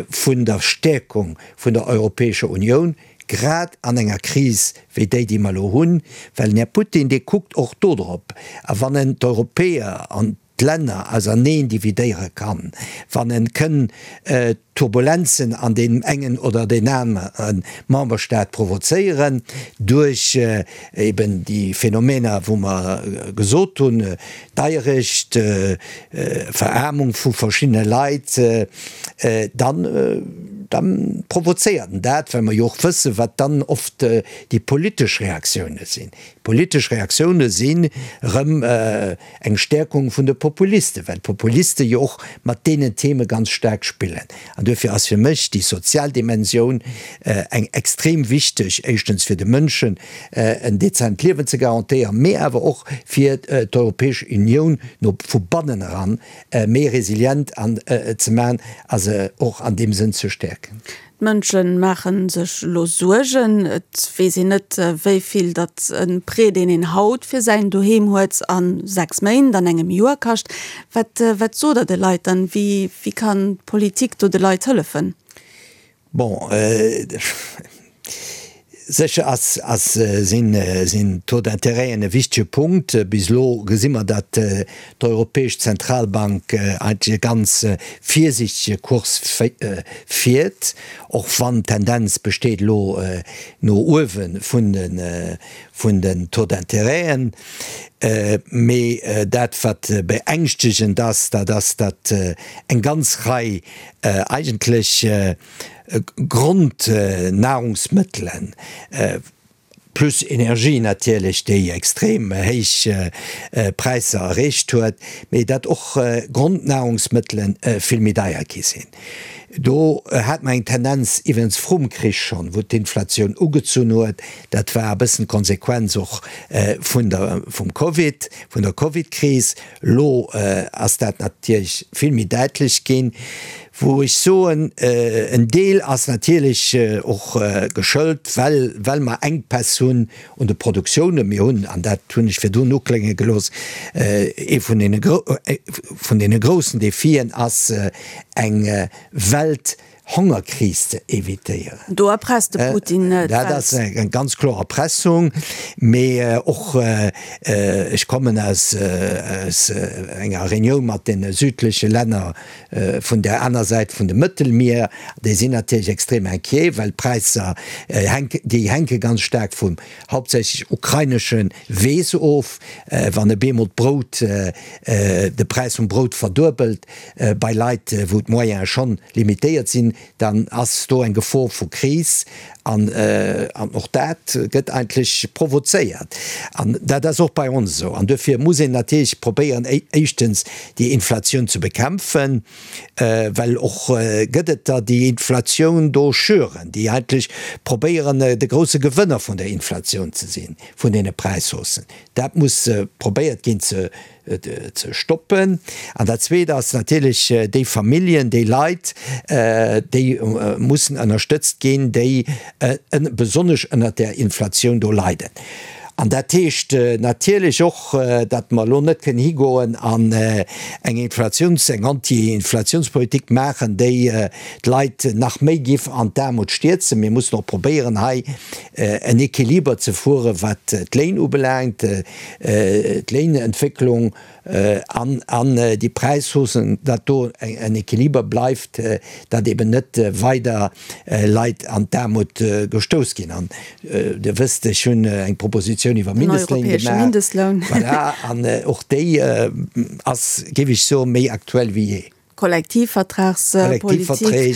vun der Stäerkung vun der Europäescher Unioun, grad an enger Kris wéi déi, déi mer elo hunn, well den Här Putin, dee kuckt och do drop. A wann en d'Europäer an d'Länner auserneen dividéiere kann, wann en kënn Turbulenzen an deem engen oder deen anere Memberstaat provozéieren duerch eben déi Phänomener, wou mer gesot hunn, Deierecht, Veraarmung vu verschiddene Leit, dann, da provozéiert en dat, well mer jo och wëssen, wat dann oft déi politesch Reaktioune sinn. D'politesch Reaktioune sinn erëm eng Stäerkung vun de Populisten, well d'Populiste jo och mat deenen Theme ganz staark spillen. An duerfir ass fir mech déi sozial Dimensioun eng extrem wichteg, éischtens fir de Mënschen en dezent Liewen ze garantéieren, mee awer och fir d'Europäesch Unioun no vu bannen eran méi resilient an ze maachen a se och an deem Sënn ze stäerken. D'Mënsche maache sech elo Suergen. Et weess een net, wéi vill datt e Prêt, deen een haut fir säin Doheem huet, a 6 Méint, an engem Joer kascht. Wat, wat sot Der de Leit dann? Wéi, wéi kann d'Politik do de Leit hëllefen? Bon, Sécher ass, ass, sinn, sinn d'Taux d'intérêten e wichtege Punkt. Bis elo gesi mer, datt d'Europäesch Zentralbank eigentlech e ganz virsiichtege Kurs fiert, och wann d'Tendenz besteet elo no uewe vun de, vun den Taux d'intérêten. Mee dat, wat beängschtegend ass, dat ass, datt eng ganz Rei eigentlech, Grondnahrungsmëttelen, plus Energie natierlech, déi extrem héich Präisser erreecht huet, mee datt och Grondnahrungsmëttele vill méi deier gi sinn. Do hat mer eng Tendenz iwwregens vrum Krich schonn, wou d'Inflatioun ugezunn huet. Dat war e bëssen d'Konsequenz och vun der, vum Covid, vun der Covid-Kris. Elo ass dat natierlech vill méi däitlech ginn. Wou ech soen, en Deel ass natierlech och geschëlt, well, well mer Enkpäss hunn un de Produktiounen. Mir hunn, an dat hunn ech virdrun uklénge gelooss, ee vun deene, vun deene groussen Defien ass eng Welthongerkris ze evitéieren. Do erpresst de Putin d'Welt. Dat ass eng ganz kloer Erpressung. Mee och, ech kommen aus enger Reunioun mat deene südleche Länner, Vun där aner Säit vun dem Mëttelmier, déi sinn natierlech extrem inquiet, well d'Präisser hänken, déi hänke ganz staark vum hauptsächlech ukrainesche Weess of. Wann e bemol d'Brout, de Präis vum Brout verduebelt bei Leit, wou d'Moyene schonn limitéiert sinn, dann ass do eng Gefor vu Kris an och dat gëtt eigentlech provozéiert. An dat ass och bei ons esou. An duerfir muss een natierlech probéieren, éischtens déi Inflatioun ze bekämpfen, well och gëtt et der, déi Inflatioun do schüren, déi eigentlech probéieren, de grousse Gewënner vun der Inflatioun ze sinn, vun deene Präishaussen. Dat muss probéiert ginn ze ze stoppen. An dat Zweet ass natierlech déi Familljen, déi Leit, déi mussen ënnerstëtzt ginn, déi besonnesch ënnert där Inflatioun do leiden. An dat heescht natierlech och, datt mer elo net kënnen higoen an eng Inflatiouns-, eng Anti-Inflatiounspolitik maachen, déi d'Leit nach méi giff an d'Aarmut stierzen. Mir mussen och probéieren, hei en Equiliber ze fueren, wat d'Léin ubelaangt, d'Léinentwécklung an an déi Präishaussen, datt do en Equiliber bleift, datt eben net weider Leit an d'Aarmut gestouss ginn. An Dir wësst, ech hunn eng Propositioun iwwer Mindestléin gemaach. Voilà, an och déi ass, géif ech soen, méi aktuell wéi jee. Kollektivvertragspolitik. Kollektivverträg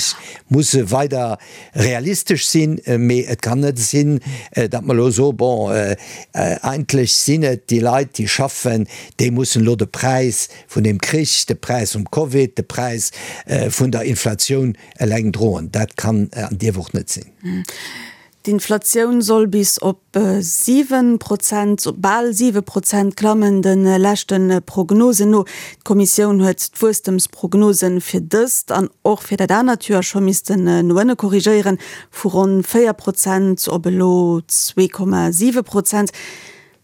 musse weider realistesch sinn, mee et kann net sinn, datt mer elo soen, bon, eigentlech sinn et déi Leit, déi schaffen, déi mussen elo de Präis vun deem Krich, de Präis vum Covid, de Präis vun der Inflatioun eleng droen. Dat kann an dierf och net sinn. D'Inflatioun soll bis op 7 Prozent, bal 7 Prozent klammen, de leschte Prognosen no. D'Kommissioun huet d'Wuesstemsprognose fir dëst an och fir dat anert Joer scho missten no ënne korrigéieren, vu ronn 4 Prozent op elo 2,7 Prozent.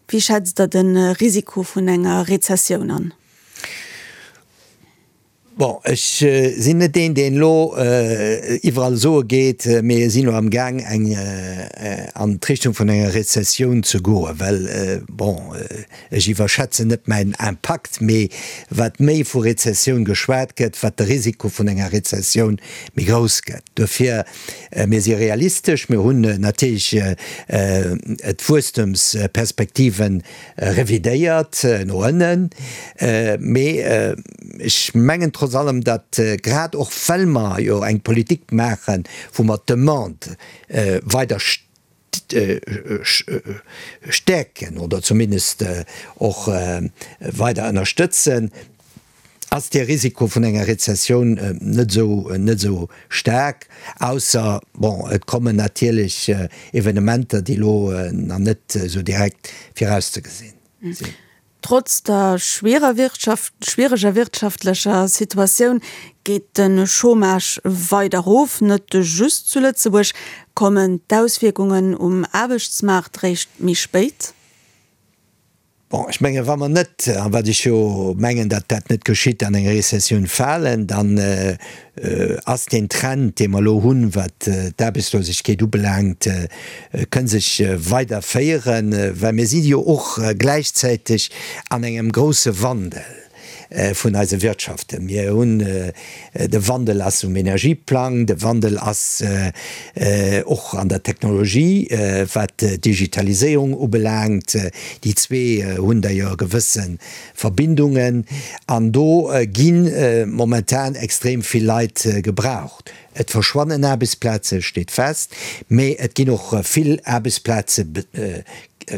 Wéi schätzt Der de Risiko vun enger Rezessioun an? Bon, ech sinn net deen, deen elo iwwerall soe geet, mir sinn elo am Gaang eng an d'Richtung vun enger Rezessioun ze goen, well, bon, ech iwwerschätzen net mäin Impakt, mee wat méi vu Rezessioun geschwat gëtt, wat de Risiko vun enger Rezessioun méi grouss gëtt. Dofir, mir si realistesch, mir hunn natierlech d'Wuesstemsperspektiven revidéiert no ënnen, mee ech mengen trotz allem, datt grad och well mer jo eng Politik maachen, wou mer d'Demande weider stäerken oder zumindest och weider ënnerstëtzen, ass dee Risiko vun enger Rezessioun net esou, net esou staark, ausser, bon, et kommen natierlech Evenementer, déi elo nach net esou direkt virauszegesinn sinn. Trotz der schwierer Wirtschaft, schwiereger wirtschaftlecher Situatioun geet de Chômage weider erof. Net just zu Lëtzebuerg. Kommen d'Auswierkungen um Aarbechtsmaart réischt méi spéit? Bon, ech mengen, wa mer net, a wat ech jo mengen, datt dat net geschitt, an eng Rezessioun falen, dann ass deen Trend, dee mer elo hunn, wat d'Aarbechtslosegkeet ubelaangt, kënn sech weiderféieren, well mir si jo och gläichzäiteg an engem grouse Wandel. vun eise Wirtschaften. Mir hunn, de Wandel ass um Energieplang, de Wandel ass och an der Technologie, wat d'Digitaliséierung ubelaangt. Déi zwee hunn d'ailleurs gewësse Verbindungen an do gi momentan extrem vill Leit gebraucht. Et verschwannen Aarbechtsplaze steet fest, mee et ginn och vill Aarbechtsplaze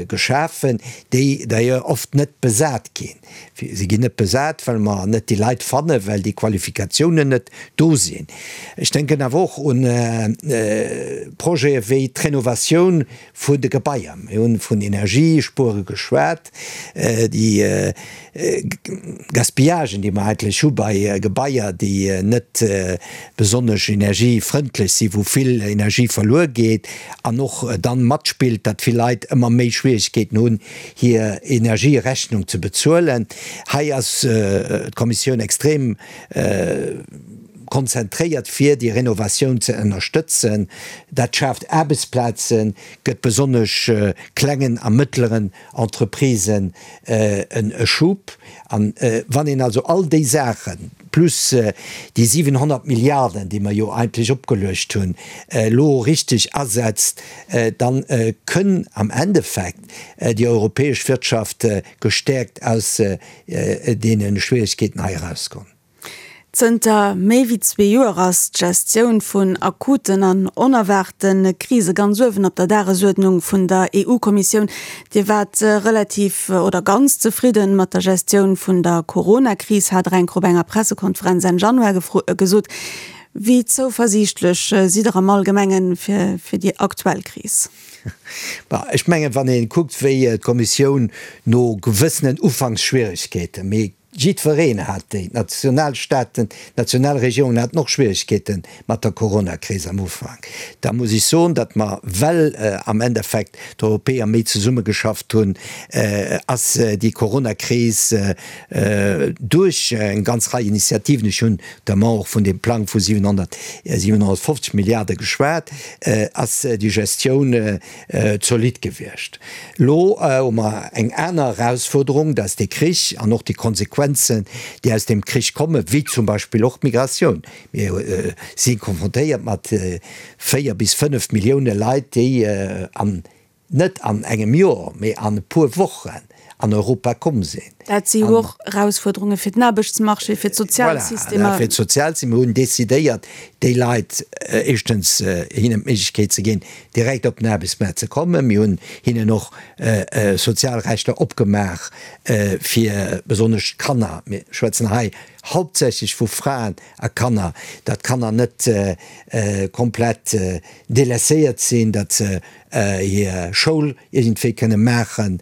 geschafen, déi d'ailleurs oft net besat ginn. Si ginn net besat, well mer net déi Leit fannen, well déi Qualifikatiounen net do sinn. Ech denken awer och un Projete wéi d'Renovatioun vun de Gebaier. Mir hunn vun Energiespuere geschwat. Déi Gaspillagen, déi mer eigentlech hu bei Gebaier, déi net besonnesch energiefrëndlech sinn, wou vill Energie verluer geet an och dann matspillt, datt vill Leit ëmmer méi Schwierigkeeten hunn, hir Energierechnung ze bezuelen. Hei ass d'Kommissioun extrem konzentréiert, fir déi Renovatioun ze ënnerstëtzen. Dat schaaft Aarbechtsplazen, gëtt besonnesch klengen a mëttleren Entreprisen e Schub. An wann een also all déi Saachen, plus déi 700 Milliarden, déi mer jo eigentlech opgeluecht hunn, elo richteg asetzt, da kënn am Endeffekt déi europäesch Wirtschaft gestäerkt aus deene Schwierigkeeten hei erauskommen. Zënter méi wéi zwee Joer ass d'Gestioun vun akuten an onerwaarte Krise ganz uewen op der Dagesuerdnung vun der EU-Kommissioun. Dir waart relativ oder ganz zefridde mat der Gestioun vun der Corona-Kris, hat Der eng Kéier op enger Pressekonferenz Enn Januar gesot. Wéi zouversiichtlech sidd Der am Allgemenge fir déi aktuell Kris? Ech mengen, wann ee kuckt, wéi d'Kommissioun no gewëssenen Ufanksschwieregkeeten, mee Jiddwereen hat déi. D'Nationalstaaten, d'Nationalregierungen haten och Schwierigkeete mat der Coronakris am Ufank. Da muss ech soen, datt mer, well am Endeffekt d'Europäer méi zesummegeschafft hunn, ass déi Coronakris duerch eng ganz Rei Initiativen, ech hunn notamment och vun deem Plang vu 700, 750 Milliarde geschwat, ass déi Gestioun zolidd gewiescht. Elo hu mer eng aner Erausfuerderung, dat ass dee Krich an och déi Konsequenzen, déi aus deem Krich kommen, wéi zum Beispill och d'Migratioun. Mir si konfrontéiert mat 4 bis 5 Millioune Leit, déi an, net an engem Joer, mee an e puer Wochen. an Europa komm sinn. Dat si jo och Erausfuerderunge fir den Aarbechtsmarché, fir d'Sozialsystemer. Voilà, fir d'Sozialsystemer. Mir hunn decidéiert, déi Leit éischtens hinnen d'Méiglechkeet ze ginn, direkt op den Aarbechtsmaart ze kommen. Mir hunn hinnen och sozial Rechter opgemaach fir besonnesch d'Kanner, mir schwätzen hei hauptsächlech vu Fraen a Kanner, datt d'Kanner net komplett délaisséiert sinn, datt se hir Schoul iergendwéi kënne maachen.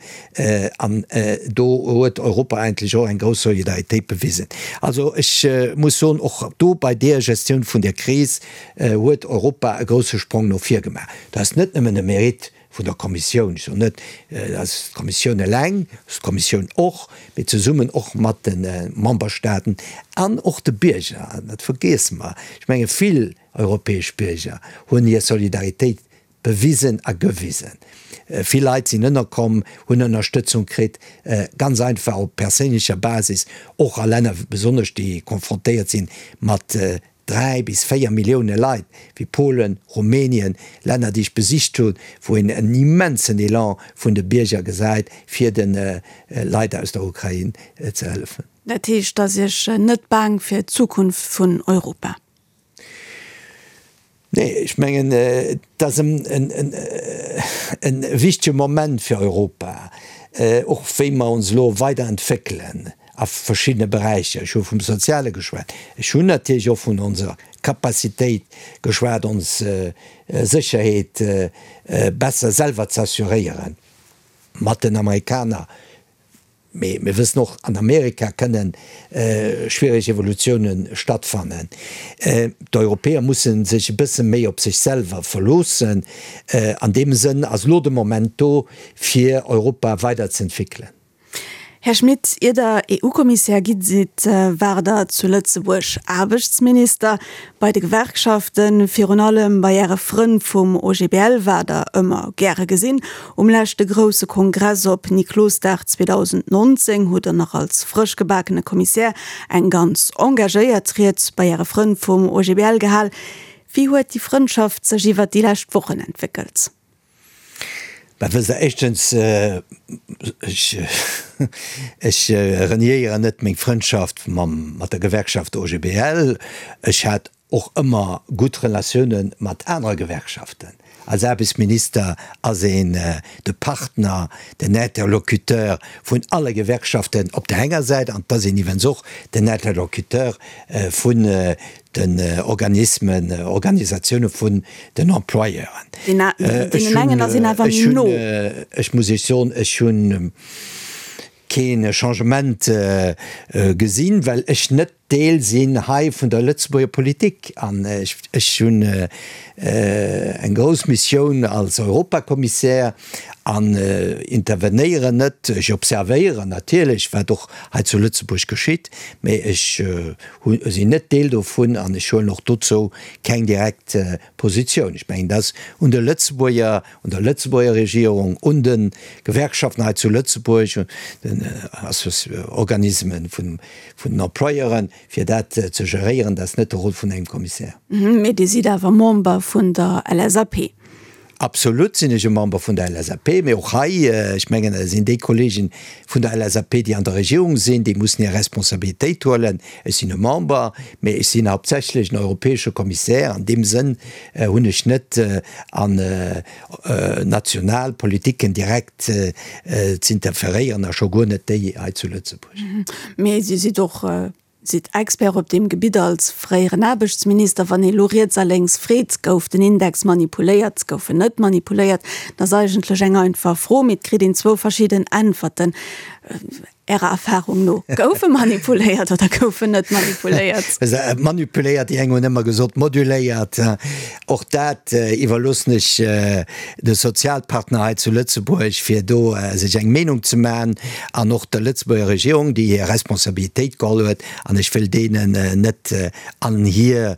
An do huet Europa eigentlech och eng grouss Solidaritéit bewisen. Also ech muss soen, och do bei deer Gestioun vun der Kris huet Europa e grousse Sprong no vir gemaach. Dat ass net nëmmen e Mérite vun der Kommissioun, ech soen net, dat ass d'Kommissioun eleng, dat ass d'Kommissioun och, mee zesummen och mat de Memberstaaten an och de Bierger, dat vergiesse mer. Ech menge vill europäesch Bierger hunn hir Solidaritéit bewisen a gewisen. Vill Leit sinn ënnerkomm, hunn Ënnerstëtzung kritt, ganz einfach op perséinlecher Basis, och a Länner besonnesch, déi konfrontéiert sinn mat 3 bis 4 Millioune Leit, wéi Polen, Rumänien, Länner, déi ech besicht hunn, wou een en immensen Elan vun de Bierger gesäit, fir de Leit aus der Ukrain ze hëllefen. Dat heescht, et ass Iech net baang fir d'Zukunft vun Europa? Nee, ech mengen, et ass e wichtege Moment fir Europa, och wéi mer ons elo weiderentwéckelen a verschiddene Beräicher. Ech hu vum Soziale geschwat, ech hunn natierlech och vun onser Capacitéit geschwat, ons Sécherheet besser selwer ze assuréieren, mat den Amerikaner. Mee mir wëssen och, an Amerika kënne schwiereg Evolutioune stattfannen. D'Europäer musse sech e bësse méi op sech selwer verloossen. An deem Sënn ass elo de Moment do, fir Europa weiderzëentwéckelen. Här Schmit, ier Der EU-Kommissär gi sidd, waart Der zu Lëtzebuerg Aarbechtsminister. Bei de Gewerkschaften, virun allem bei Äre Frënn vum OGBL, waart Der ëmmer gäre gesinn. Um leschte grousse Kongress op Niklosdag 2019 hutt Der nach als frësch gebakene Kommissär eng ganz engagéiert Ried bei Äre Frënn vum OGBL gehal. Wéi huet déi Frëndschaft sech iwwert déi lescht Wochen entwéckelt? Bah, wësst Der, éischtens, ech, ech reniéieren net meng Frëndschaft mam, mat der Gewerkschaft OGBL. Ech hat och ëmmer gutt Relatioune mat anere Gewerkschaften. Als Aarbechtsminister ass een de Partner, den Interlocuteur vun alle Gewerkschaften op der enger Säit an et ass een iwwens och den Interlocuteur vun den Organismen, Organisatioune vun den Employeuren. Deenen engen ass een awer méi no. Ech muss Iech soen, ech hu kee Changement gesinn, well ech net Deel sinn hei vun der Lëtzebuerger Politik an ech hunn eng grouss Missioun als Europakommissär an intervenéieren net. Ech observéieren natierlech, wat och hei zu Lëtzebuerg geschitt, mee ech sinn net Deel dovun an ech huelen och dozou keng direkt Positioun. Ech mengen, dat ass un de Lëtzebuerger, un der Lëtzebuerger Regierung, un de Gewerkschaften hei zu Lëtzebuerg, un den Organismen vun den Employeuren, fir dat ze geréieren. Dat ass net de Rôle vun engem Kommissär. Mee Dir sidd awer Member vun der LSAP. Absolut sinn ech e Member vun der LSAP, mee och hei, ech mengen, et sinn déi Kollegen vun der LSAP, déi an der Regierung sinn, déi mussen hir Responsabilitéit huelen. Ech sinn e Member, mee ech sinn hauptsächlech en europäesche Kommissär. An deem Sënn hunn ech net an national Politiken direkt z'interferéieren a scho guer net déi hei zu Lëtzebuerg. Mee Dir sidd och Sidd Expert op deem Gebitt als fréieren Aarbechtsminister. Wann ee lo riets a lénks freet, gouf den Index manipuléiert, gouf en net manipuléiert, dat ass eigentlech eng einfach Fro, mee et kritt een zwou verschidden Äntwerten. Ärer Erfahrung no, gouf e manipuléiert oder gouf en net manipuléiert? Manipuléiert, déi eng hunn ëmmer gesot moduléiert. Och dat iwwerloossen ech de Sozialpartner hei zu Lëtzebuerg, fir do sech eng Meenung ze maachen, an och der Lëtzebuerger Regierung, déi hir Responsabilitéit geholl huet, an ech wëll deenen net an hir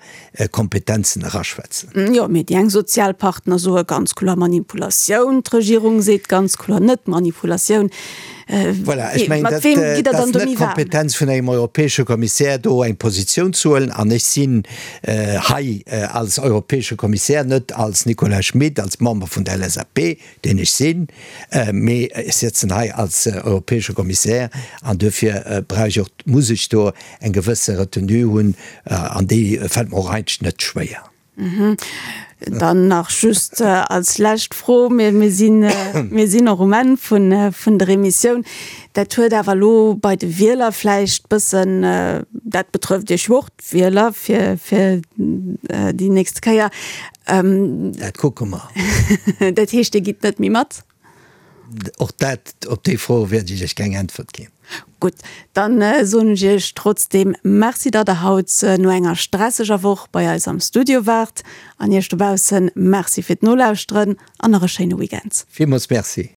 Kompetenzen eraschwätzen. Jo, mee déi eng Sozialpartner soe ganz kloer Manipulatioun, d'Regierung seet ganz kloer net Manipulatioun. Voilà, ech mengen, dat, dat ass net d'Kompetenz vun engem europäesche Kommissär, do eng Positioun ze huelen. An ech sinn hei als europäesche Kommissär, net als Nicolas Schmit, als Member vun der LSAP, deen ech sinn, mee ech sëtzen hei als europäesche Kommissär an duerfir brauch ech och, muss ech do eng gewësse Retenue hunn an déi fält mer och eigentlech net schwéier. Dann nach just als lescht Fro, mir sinn, mir sinn och um Enn vun, vun der Emissioun. Dat huet awer elo bei de Wieler vläicht bëssen, dat betrëfft Iech jo och, d'Wieler, fir, fir déi nächste Kéier. Dat kucke mer. Dat heescht, Dir gitt net méi mat? Och dat, op déi Fro wäert ech Iech keng Äntwert ginn. Gutt, dann soen ech Iech trotzdeem Merci, datt Der haut no enger stresseger Woch bei eis am Studio waart. An Iech dobaussen Merci fir d'Nolauschteren an nach e schéine Weekend. Villmools Merci.